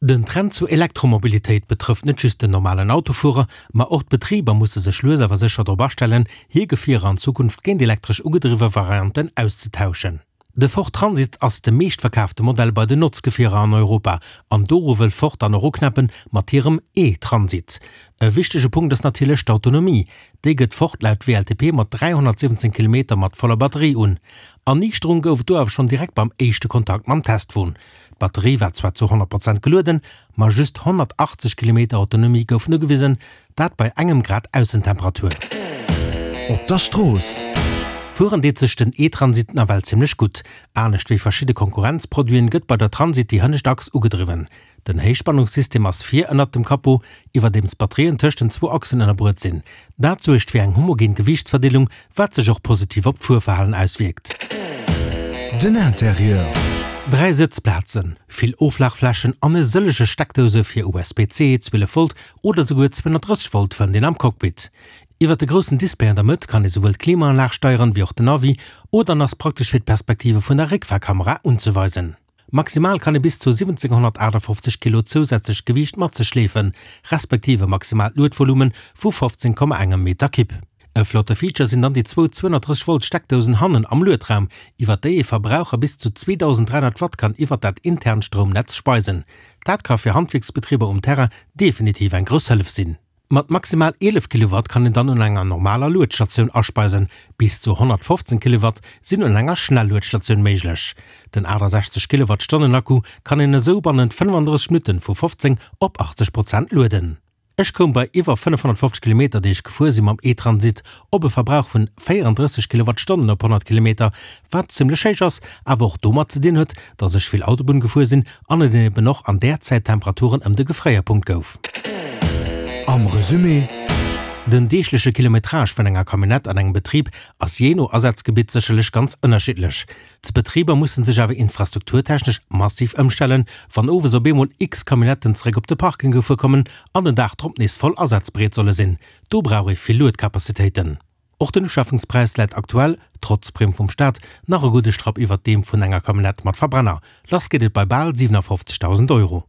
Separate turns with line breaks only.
Den Trend zur Elektromobilitéit betrëfft net just den normalen Autofuerer, ma och d'Betriber musse sech lues awer sécher drop astellen, hir Gefierer an Zukunft géint elektresch ugedriwwe Varianten auszetauschen. De Ford Transit ass de meeschtverkaafte Modell bei den Notzgefierer an Europa an doru wëll Ford dann och uknäppe mat hirem E-Transit. E wichtege Punkt ass natierlech d'Autonomie. Déi gëtt Ford laut WLTP mat 317 Kilometer mat voller Batterie un. Erniichterung gouf et do awer schonn direkt beim éischte Kontakt mam Testwon. D'Batterie war zwar zu 100 Prozent gelueden, ma just 180 Kilometer Autonomie goufen ugewisen, dat bei engem Grad Aussentemperatur.
Op der Strooss.
Fueren deet sech den e-Transit nawell zimmlech gutt. Anescht wéi verschidde Konkurrenzproduiten gëtt bei der Transit déi hënnescht Achs ugedriwwen. Den Héichspannungssystem ass vir ënnert dem Capot, iwwerdeems d'Batterien tëscht den zwou Achsen ënnerbruet sinn. Dat suergt fir eng homogen Gewiichtsverdeelung, wat sech och positiv op d'Fuerverhalen auswierkt.
Den Interieur.
3 Sëtzplazen, vill Oflagflächen an e sëllege Steckdouse fir USB-C, 12 Volt oder souguer 230 Volt fënnt een am Cockpit. Iwwert de groussen Display an der Mëtt kann ee souwuel d'Klimaanlag steieren, wéi och den Navi oder en ass praktesch fir d'Perspektive vun der Réckfahrkamera unzeweisen. Maximal kann ee bis zu 1758 Kilo zousätzlecht Gewiicht mat sech schleefen, respektiv e maximaalt Luedvolume vu 15,1 Meter Kibb. E flotte Feature sinn dann déi zwou 230 Volt Steckdousen hannen am Luedraum, iwwer déi ee Verbraucher bis zu 2300 Watt kann iwwer dat internt Stroumnetz speisen. Dat ka fir Handwierksbetriber um Terrain definitiv eng grouss Hëllef sinn. Mat maximal 11 Kilowatt kann een dann un enger normaler Luedstatioun aspeisen, bis zu 115 Kilowatt sinn un enger Schnelluedstatioun méiglech. Den 68 Kilowattstonnen Akku kann een esou bannent 35 Minutten vu 15 op 80 Prozent lueden. Ech koum bei iwwer 550 Kilometer déi ech gefuer sinn mam e-Transit op e Verbrauch vun 34 Kilowattstonnen op 100 Kilometer, wat zimmlech héich ass, awer och domat ze dinn huet, dass ech vill Autobunn gefuer sinn an et eben och an där Zäit Temperaturen ëm de Gefréierpunkt gouf.
Am Resumé.
Den deegleche Kilometrage vun enger Camionnette an engem Betrib ass jee no Asazgebitt sécherlech ganz ënnerschiddlech. D'Betriber mussen sech awer infrastrukturtechnesch massiv ëmstellen, wann owes op eemol x Camionnetten zeréck op de Parking gefuer kommen an den Dag drop nees voll asazbereet solle sinn. Do brauch ee vill Luedcapacitéiten. Och den Uschafungspräis läit aktuell, trotz Primm vum Staat, nach e gudde Strapp iwwert deem vun enger Camionnette mat Verbrenner. Lass geet et bei bal 57.000 Euro.